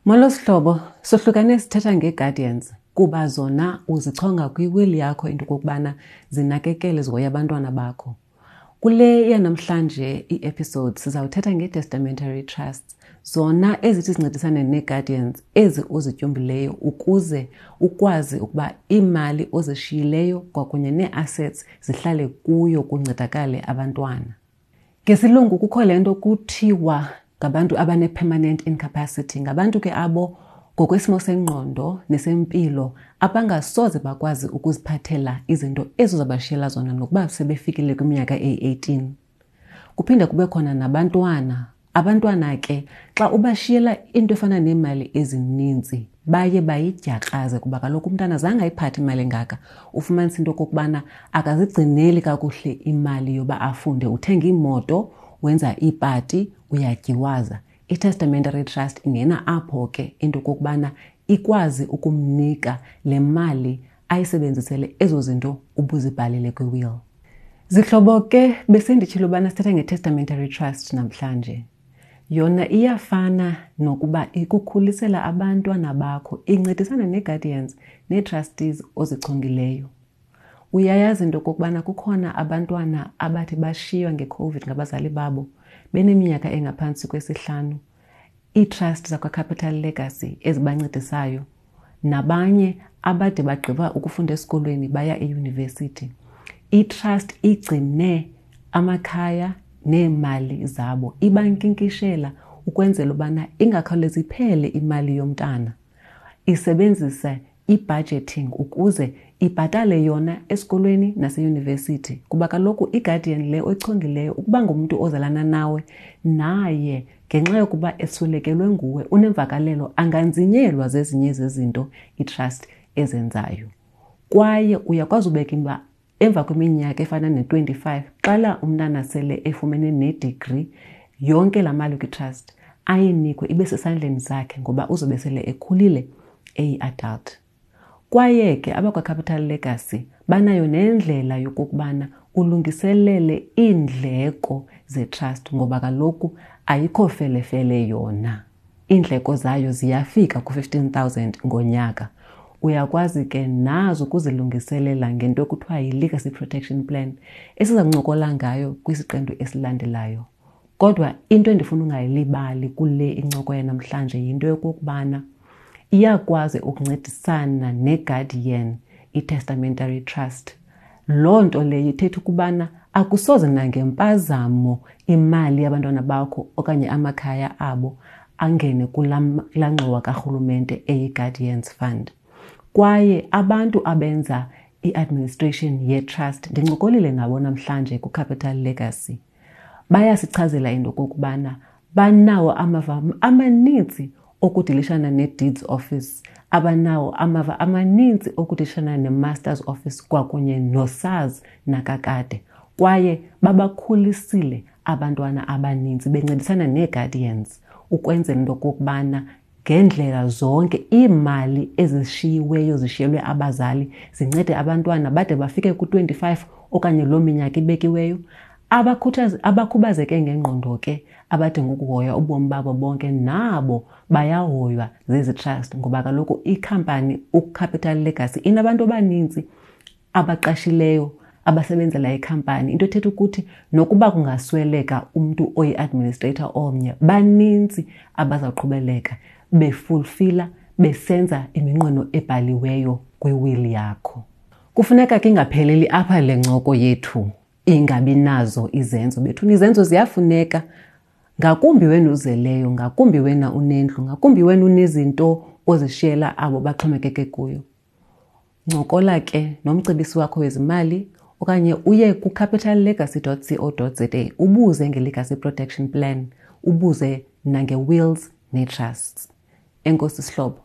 Molo sihlobo, sohlukane sithetha ngee-guardians kuba zona uzichonga kwiwili yakho into okokubana zinakekele zihoye abantwana bakho. Kule yanamhlanje ii-episodes sizawuthetha ngee-testamentary trusts, zona ezithi zincedisane nee-guardians ezi uzityumbileyo ukuze ukwazi ukuba iimali ozishiyileyo kwakunye nee-assets zihlale kuyo kuncedakale abantwana. Ngesilungu kukho le nto kuthiwa ngabantu abane-permanent incapacity, ngabantu ke abo ngokwesimo sengqondo nesempilo abangasoze bakwazi ukuziphathela izinto ezo zabashiyela zona nokuba sebefikile kwiminyaka eyi-18. Kuphinde kube khona nabantwana. Abantwana ke xa ubashiyela into efana neemali ezininzi baye bayidyakraze kuba kaloku umntana zange ayiphathe imali engaka. Ufumanisa into okokubana akazigcineli kakuhle imali yoba afunde, uthenga iimoto, wenza iipati, uyatyiwaza. I-testamentary trust ingena apho ke into okokubana ikwazi ukumnika le mali ayisebenzisele ezo zinto ubuzibhalile kwi-will. Zihlobo ke, besenditshilo ubana sithetha nge-testamentary trust namhlanje. Yona iyafana nokuba ikukhulisela abantwana bakho, incedisana nee-guardians nee-trustees ozichongileyo. Uyayazi into okokubana kukhona abantwana abathi bashiywa ngeCOVID ngabazali babo beneminyaka engaphantsi kwesihlanu, ii-trust zakwaCapital Legacy ezibancedisayo, nabanye abade bagqiba ukufunda esikolweni baya eyunivesithi. I-trust igcine amakhaya neemali zabo, ibankinkishela ukwenzela ubana ingakhawulezi iphele imali yomntana. Isebenzisa i-budgeting ukuze ibhatale yona esikolweni naseyunivesithi, kuba kaloku i-guardian le oyichongileyo ukuba ngumntu ozalana nawe, naye ngenxa yokuba eswelekelwe nguwe unemvakalelo, anganzinyelwa zezinye zezinto i-trust ezenzayo. Kwaye uyakwazi ubeka imba emva kweminyaka efana ne-25, xala umntana sele efumene nedegree, yonke laa mali kwi-trust ayinikwe ibe sesandleni sakhe ngoba uzobe sele ekhulile eyi-adult. Kwaye ke abakwaCapital Legacy banayo nendlela yokokubana ulungiselele iindleko zetrust ngoba kaloku ayikho felefele yona. Iindleko zayo ziyafika ku-15,000 ngonyaka. Uyakwazi ke nazo ukuzilungiselela ngento ekuthiwa yi-Legacy Protection Plan esiza kuncokola ngayo kwisiqendu esilandelayo. Kodwa into endifuna ungayilibali kule incoko yanamhlanje yinto yokokubana iyakwazi ukuncedisana neGuardian, i-Testamentary Trust. Loo nto leyo ithetha ukubana akusoze nangempazamo imali yabantwana bakho okanye amakhaya abo angene kulaa ngxowa karhulumente eyi-Guardians Fund. Kwaye abantu abenza i-administration ye-trust ndincokolile nabo namhlanje ku-Capital Legacy. Bayasichazela into okokubana banawo amava amaninzi okudilishana ne-Deeds Office, abanawo amava amaninzi okudilishana ne-Master's Office kwakunye no-SARS nakakade. Kwaye babakhulisile abantwana abaninzi bencedisana nee-guardians ukwenzela into okokubana ngeendlela zonke iimali ezishiyiweyo zishiyelwe abazali zincede abantwana bade bafike ku-25 okanye loo minyaka ibekiweyo. Abakhubazeke ngengqondo ke abadinga ukuhoywa ubomi babo bonke nabo bayahoywa zezi trust ngoba kaloku ikhampani uCapital Legacy inabantu abaninzi abaqashileyo abasebenzela ikhampani, into ethetha ukuthi nokuba kungasweleka umntu oyi-administrator omnye, baninzi abazawuqhubeleka befulfila besenza iminqweno ebhaliweyo kwiwili yakho. Kufuneka ke ingapheleli apha le ncoko yethu ingabi nazo izenzo. Bethuna, izenzo ziyafuneka, ngakumbi wena uzeleyo, ngakumbi wena unendlu, ngakumbi wena unezinto ozishiyela abo baxhomekeke kuyo. Ncokola ke nomcebisi wakho wezimali okanye uye ku-capitallegacy.co.za ubuze nge-Legacy Protection Plan, ubuze nange-wills nee-trusts. Enkosi sihlobo.